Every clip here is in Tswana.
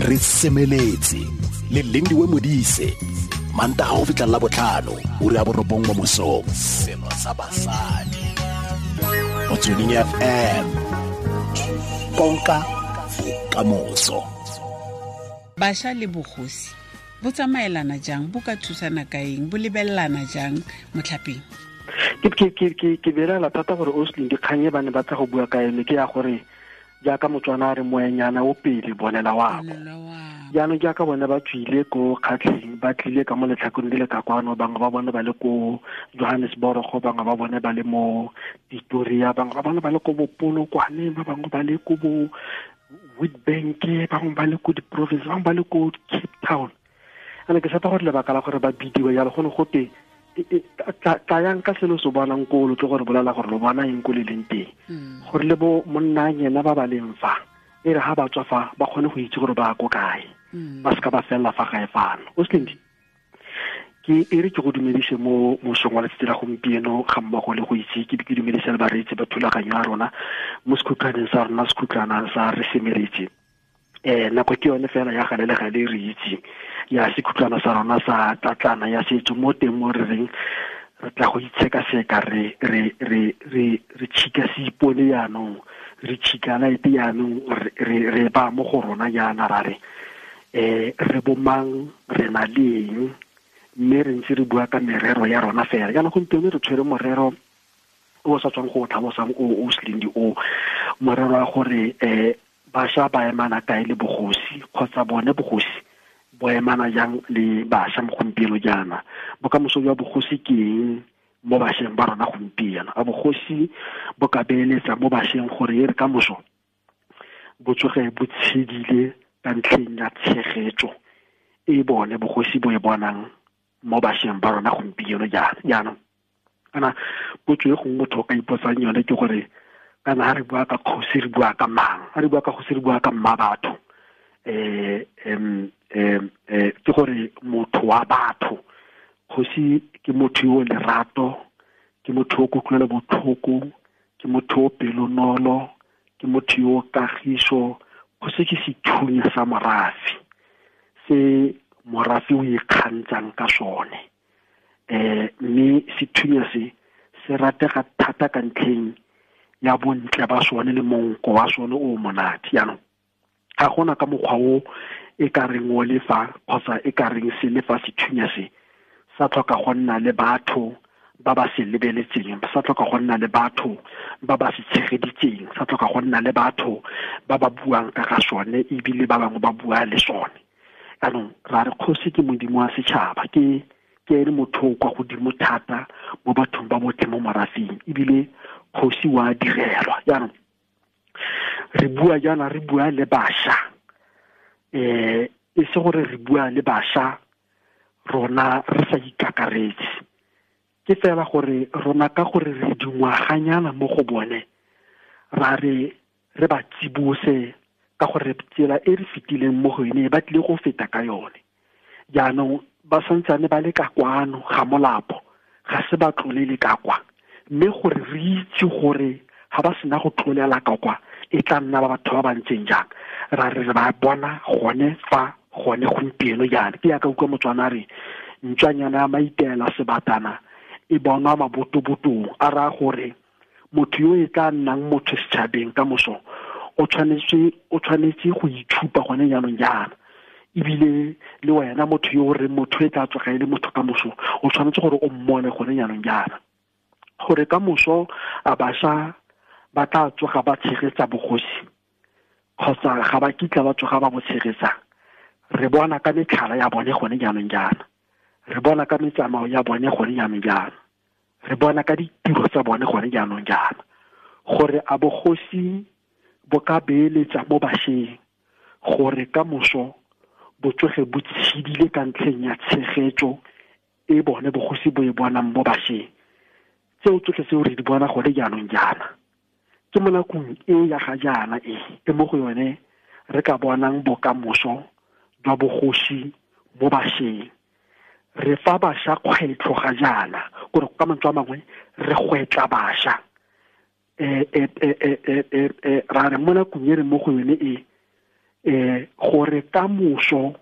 Re semeletse le Lindiwe Modise, Mantaga go fitlha la botlhano, ura ya 9 mo mosong. Selo sa basadi. Motsweding FM. Konka bokamoso. Bašwa le bogosi bo tsamaelana jang, bo ka thusana ka eng, bo lebelelana jang motlhapeng? Ke belaela thata gore Oslin dikgang e ba ne ba tla go bua ka yone ke ya gore jaaka Motswana a re moenyana o pele bonela wako. Jaanong jaaka bone ba tswile ko Kgatlheng, ba tlile ka mo letlhakong le le ka kwano, bangwe ba bone ba le ko Johannesburg, bangwe ba bone ba le mo Pretoria, bangwe ba bone ba le ko Bopolokwane, ba bangwe ba le ko bo Witbank, bangwe ba le ko di-province, bangwe ba le ko Cape Town. Ane ke tshepa gore lebaka la gore ba bidiwe jalo go ne gote tlayang ka selo se bonang ko lo tlo gore bolela gore lo bona eng ko le leng teng, gore le bo monna yena ba ba leng fa e re ha ba tswa fa ba kgone go itse gore ba ko kae, ba seka ba fella fa gae fano. O Slindi, ke e re ke go dumedise mo mosong wa letsatsi la gompieno ga mmogo le go itse ke ke dumedise le bareetsi ba thulaganyo ya rona mo sekhutlwaneng sa rona, sekhutlwana sa re semeletse. Nako ke yone fela ya gale le gale re itse ya sekhutlwana sa rona sa tlatlana ya setso mo teng mo re reng re tla go itshekaseka, re re re re re tshika seipone jaanong, re tshika laete jaanong, re re ba mo go rona jaana ra re, re bomang, re na le eng, mme re ntse re bua ka merero ya rona fela. Jaanong gompieno re tshwere morero o sa tswang go o tlhalosang o Slindi o, morero wa gore bašwa ba emana kae le bogosi, kgotsa bone bogosi bo emana jang le bašwa mo gompieno jaana. Bokamoso jwa bogosi ke eng mo bašweng ba rona gompieno? A bogosi bo ka beeletsa mo bašweng gore e re ka moso bo tsoge bo tshedile ka ntlheng ya tshegetso e bone bogosi bo e bonang mo bašweng ba rona gompieno jaana? Jaanong kana potso e gongwe motho o ka ipotsang yone ke gore kana ha re bua ka kgosi re bua ka mang, ha re bua ka kgosi re bua ka mma batho, ke gore motho wa batho. Kgosi ke motho yo o lerato, ke motho yo o kutlwelo botlhoko, ke motho yo o pelonolo, ke motho yo o kagiso. Kgosi ke sethunya sa morafe se morafe o ikgantshang ka sone, mme sethunya se se ratega thata ka ntlheng ya bontle ba sone le monko wa sone o monate. Jaanong ga gona ka mokgwa o e ka reng o le fa kgotsa e ka reng se le fa sethunya se sa tlhoka go nna le batho ba ba se lebeletseng, sa tlhoka go nna le batho ba ba se tshegeditseng, sa tlhoka go nna le batho ba ba buang ka ga sone ebile ba bangwe ba bua le sone. Jaanong ra re kgosi ke modimo wa setšhaba, ke ene motho o kwa godimo thata mo bathong ba botlhe mo morafeng, ebile kgosi wa direlwa. Jaanong re bua jaana, re bua le bašwa, e se gore re bua le bašwa rona re sa ikakaretse, ke fela gore rona ka gore re dingwaganyana mo go bone ra re re ba tsibose ka gore tsela e re fetileng mo go yone ba tlile go feta ka yone. Jaanong ba santsane ba le ka kwano ga molapo, ga se ba tlolele ka kwa, mme gore re itse gore ga ba sena go tlolela ka kwa e tla nna ba batho ba ba ntseng jang, ra re re ba bona gone fa gone gompieno jaana. Ke yaka utlwa Motswana a re ntswanyana ya maitela sebatana e bonwa mabotobotong, a raya gore motho yo e tla nnang motho setšhabeng ka moso o tshwanetse go itshupa gone jaanong jaana. Ebile le wena motho yo o reng motho e tla tsoga e le motho ka moso, o tshwanetse gore o mmone gone jaanong jaana, gore ka moso a bašwa ba tla tsoga ba tshegetsa bogosi kgotsa ga ba kitla ba tsoga ba bo tshegetsa. Re bona ka metlhala ya bone gone jaanong jaana, re bona ka metsamao ya bone gone jaanong jaana, re bona ka ditiro tsa bone gone jaanong jaana, gore a bogosi bo ka beeletsa mo bašweng gore ka moso bo tsoge bo tshedile ka ntlheng ya tshegetso e bone bogosi bo e bonang mo bašweng. Tseo tsotlhe tseo re di bona gone jaanong jaana, ke mo nakong e ya ga jaana e, e mo go yone re ka bonang bokamoso jwa bogosi mo bašweng. Re fa bašwa kgwetlho ga jaana, gore ka mantswe a mangwe re gwetla bašwa. Ra re mo nakong e re mo go yone e, Gore ka moso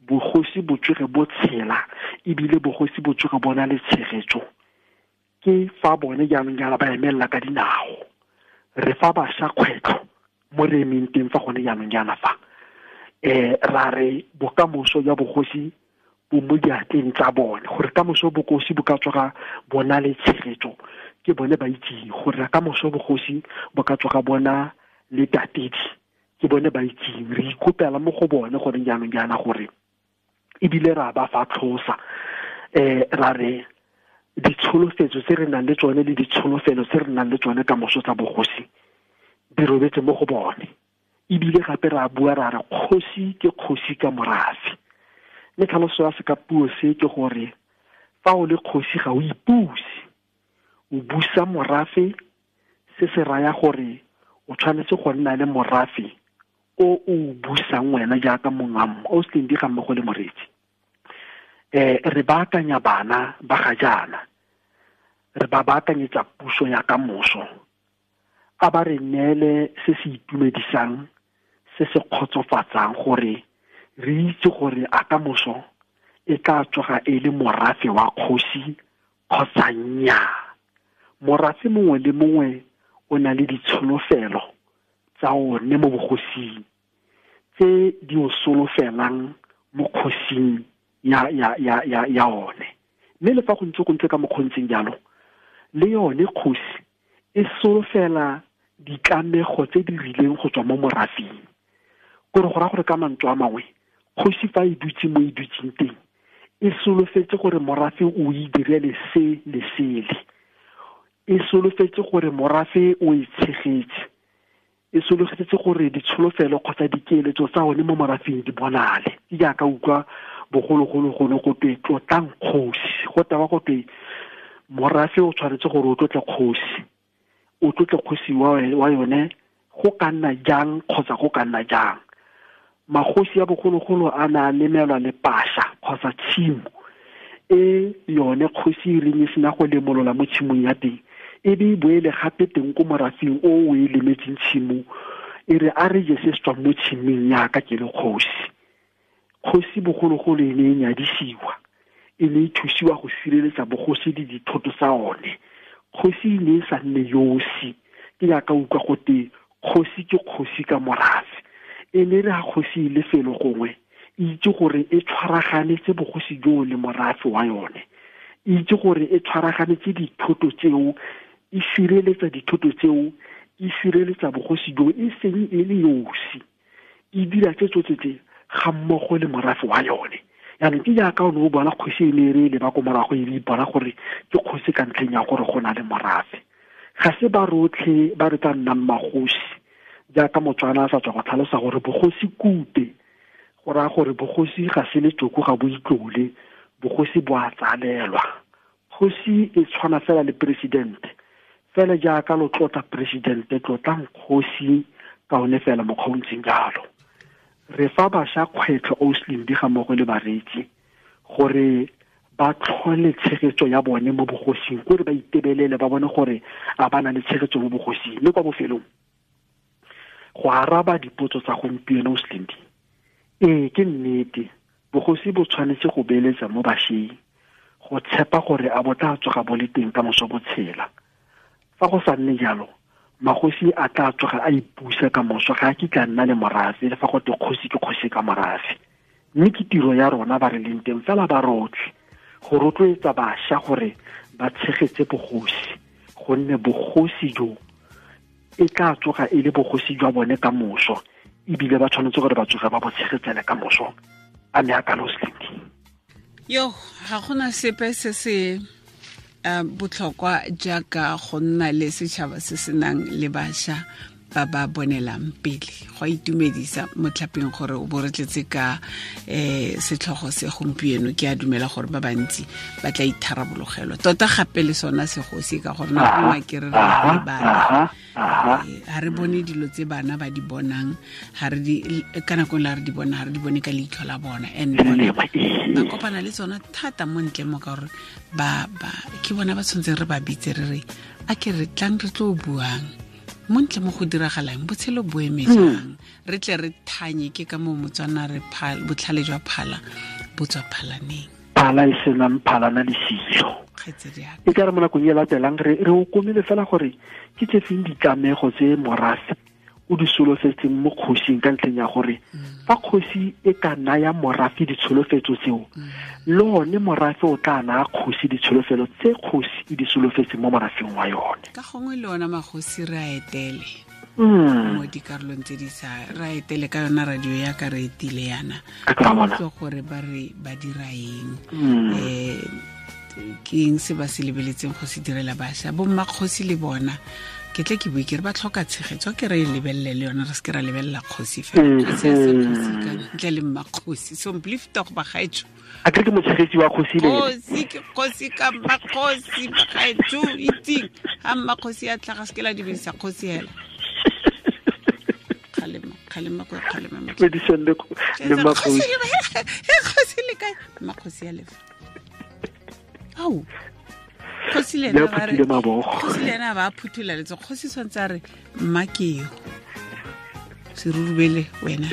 bogosi bo tsoge bo tshela ebile bogosi bo tsoge bona le tshegetso ke fa bone jaanong jaana ba emelela ka dinao. Re fa bašwa kgwetlho mo re emeng teng fa gone jaanong jaana fa ra re bokamoso jwa bogosi bo mo diatleng tsa bone, gore kamoso bogosi bo ka tsoga bona le tshegetso ke bone ba itseng, gore kamoso bogosi bo ka tsoga bona le tatedi ke bone ba itseng. Re ikopela mo go bone gore jaanong jaana gore ebile ra ba fa tlhosa, ra re ditsholofetso tse re nang le tsone le ditsholofelo tse re nang le tsone ka moso tsa bogosi di robetse mo go bone. Ebile gape ra bua ra re kgosi ke kgosi ka morafe, mme tlhaloso ya sekapuo se ke gore fa o le kgosi ga o ipuse, o busa morafe. Se se raya gore o tshwanetse go nna le morafe o o busang wena jaaka mongamo o se di ga mmogo le moreetsi. Re baakanya bana ba ga jaana, re ba baakanyetsa puso ya ka moso, a ba re neele se se itumedisang, se se kgotsofatsang, gore re itse gore a ka moso e tla tsoga e le morafe wa kgosi kgotsa nnyaa. Morafe mongwe le mongwe o na le ditsholofelo tsa one mo bogosing tse di o solofelang mo kgosing ya one. Mme le fa go ntse ka mokgontseng jalo, le yone kgosi e solofela ditlamego tse di rileng go tswa mo morafeng. Kore go raya gore ka mantswe a mangwe, kgosi fa e dutse mo e dutseng teng e solofetse gore morafe o e direle se le sele, e solofetse gore morafe o e tshegetse, e solofetse gore ditsholofelo kgotsa dikeletso tsa one mo morafeng di bonale. Ke jaaka utlwa bogologolo gone go twe tlotlang kgosi, go tewa go twe morafe o tshwanetse gore o tlotle kgosi, o tlotle kgosi wa yone go ka nna jang kgotsa go ka nna jang. Magosi a bogologolo a na a lemelwa le pasha kgotsa tshimo e yone kgosi e reng e sena go lemolola mo tshimong ya teng, e be e boele gape teng ko morafeng o o e lemetseng tshimo, e re a re je se se tswang mo tshimong yaka ke le kgosi. Kgosi bogologolo e ne e nyadisiwa, e ne e thusiwa go sireletsa bogosi le dithoto tsa one. Kgosi e ne e sa nne yosi, ke jaaka utlwa gote kgosi ke kgosi ka morafe. E ne re ga kgosi e le felo gongwe, e itse gore e tshwaraganetse bogosi joo le morafe wa yone, e itse gore e tshwaraganetse dithoto tseo, e sireletsa dithoto tseo, e sireletsa bogosi joo e seng e le yosi, e dira tse tsotlhe tse ga mmogo le morafe wa yone. Jaanong ke jaaka o ne o bona kgosi e ne e re leba ko morago e ipona gore ke kgosi ka ntlheng ya gore go na le morafe. Ga se ba rotlhe ba re tla nnang magosi, jaaka Motswana a sa tswa go tlhalosa gore bogosi kute, go raya gore bogosi ga se letsoko, ga bo itlole, bogosi bo a tsalelwa. Kgosi e tshwana fela le presidente, fela jaaka lo tlotla presidente, tlotlang kgosi ka one fela mokgwa o ntseng jalo. Re fa bašwa kgwetlho Oslin di ga mmogo le bareetsi gore ba tlhole tshegetso ya bone mo bogosing, kore ba itebelele ba bone gore a ba na le tshegetso mo bogosing. Mme kwa bofelong, go araba dipotso tsa gompieno Oslin, ee ke nnete, bogosi bo tshwanetse go beeletsa mo bašweng, go tshepa gore a bo tla tsoga bo le teng ka moso bo tshela. Fa go sa nne jalo, magosi a tla tsoga a ipusa ka moso, ga a kitla nna le morafe, le fa go twe kgosi ke kgosi ka morafe. Mme ke tiro ya rona ba re leng teng fela ba rotlhe go rotloetsa bašwa gore ba tshegetse bogosi, gonne bogosi jo e tla tsoga e le bogosi jwa bone ka moso, ebile ba tshwanetse gore ba tsoge ba bo tshegetsele ka moso. A me a kalo Slindi. Yo, ga gona sepe se se botlhokwa jaaka go nna le setšhaba se se nang le bašwa ba ba bonelang pele. Go a itumedisa motlhapeng gore o bo re tletse ka setlhogo se gompieno. Ke a dumela gore ba bantsi ba tla itharabologelwa tota gape le sona segosi, ka gore nako nngwe ke re re lebala, ga re bone dilo tse bana ba di bonang, ka nako la re di bona, ga re di bone ka leitlho la bona, and bona ba kopana le tsona thata mo ntle mo, ka gore ba ke bona ba tshwanetseng re ba bitse re re a ke re tlang re tlo buang Montle mo go diragalang botshelo bo eme jang, re tle re thanye ke ka moo Motswana re botlhale jwa phala bo tswa phalaneng. Phala e senang phalana le silo. E ka re mo nakong e latelang re o komile fela gore ke tse feng ditlamego tse morafe o di solofetseng mo kgosing ka ntlheng ya gore fa kgosi e ka naya morafe ditsholofetso tseo, le one morafe o tla naya kgosi ditsholofelo tse kgosi e di solofetseng mo morafeng wa yone. Ka gongwe le ona magosi re a etele mo dikarolong tse di sa re a etele ka yona radio ya ka re etile yana, ka utlwe gore ba re ba dira eng, ke eng se ba se lebeletseng go se direla bašwa. Bo mmakgosi le bona ke tle ke bue ke re ba tlhoka tshegetso, ke re e lebelele le yona, re se ke ra lebelela kgosi fela. Kgosi ya se kgosi ka ntle le mmakgosi. So mplifta go bagaetsho. A ke motshegetsi wa kgosi le kgosi ke kgosi ka mmakgosi bagaetsho itseng ha mmakgosi a tlhaga se ke la dumedisa kgosi hela. Kgalema kgalema ko kgalema le mmakgosi. Kgosi le kae? Mmakgosi ya lefa. Au. Kgosi le ena ba re kgosi le ena ba phuthula letso, kgosi tshwanetse a re mma ke yo serurubele wena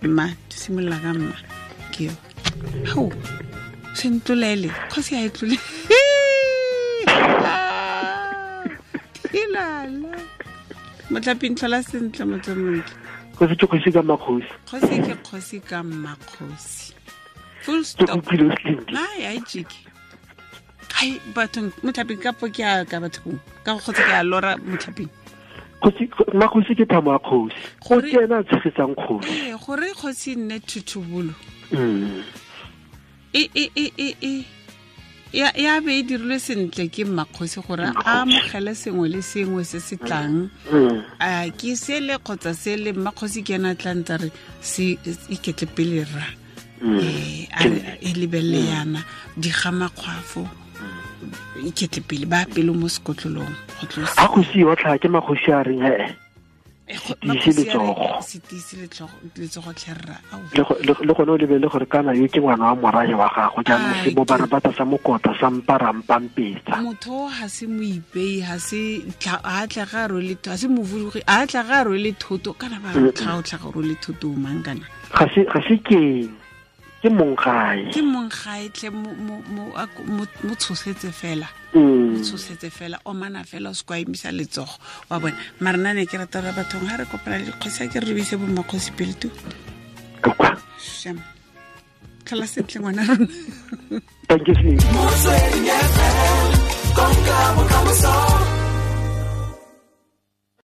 mma simolola ka mma ke yo hao se ntlolele kgosi a e tlole tilala motlaping tlhola sentle motho montle. Kgosi ke kgosi ka mmakgosi, kgosi ke kgosi ka mmakgosi, full stop. Ai ai jiki ai bathong motlhaping ka po ke a ka bathong ka go kgotsa ke a lora motlhaping. Kgosi mmakgosi ke thamo ya kgosi, go ke ena a tshegetsang kgosi. Ee, gore kgosi nne thutubolo ya be e dirilwe sentle ke mmakgosi gore a amogele sengwe le sengwe se se tlang, a ke sele kgotsa sele mmakgosi ke ena a tla ntse re se iketle pele rra, e lebelele yana digamakgwafo iketle pele ba pelo mo sekotlolong go tlosa. A kgosi yotlha ke makgosi a reng se tiise letsogo, se tiise letsogo tlherra. Le gone o lebelele gore kana yo ke ngwana wa morahe wa gago, jaanong se bo barabata sa mokota sa mparampampetsa. Motho ga se moipei, ga se a tla ga rwele, ga se movudugi, a tla ga rwele thoto kana ba tlha o tla ga rwele thoto mang kana ga se keng ke monggae, ke monggae tle mo tshosetse fela, mo tshosetse fela, o mana fela o se kwa emisa letsogo wa bona. Mara nna ne ke rata gore bathong ha re kopana le dikgosi a ke re rebise bo mmakgosi pele tu. Shame. Tlhola sentle ngwana rona. Thank you. Motsweding FM, konka bokamoso.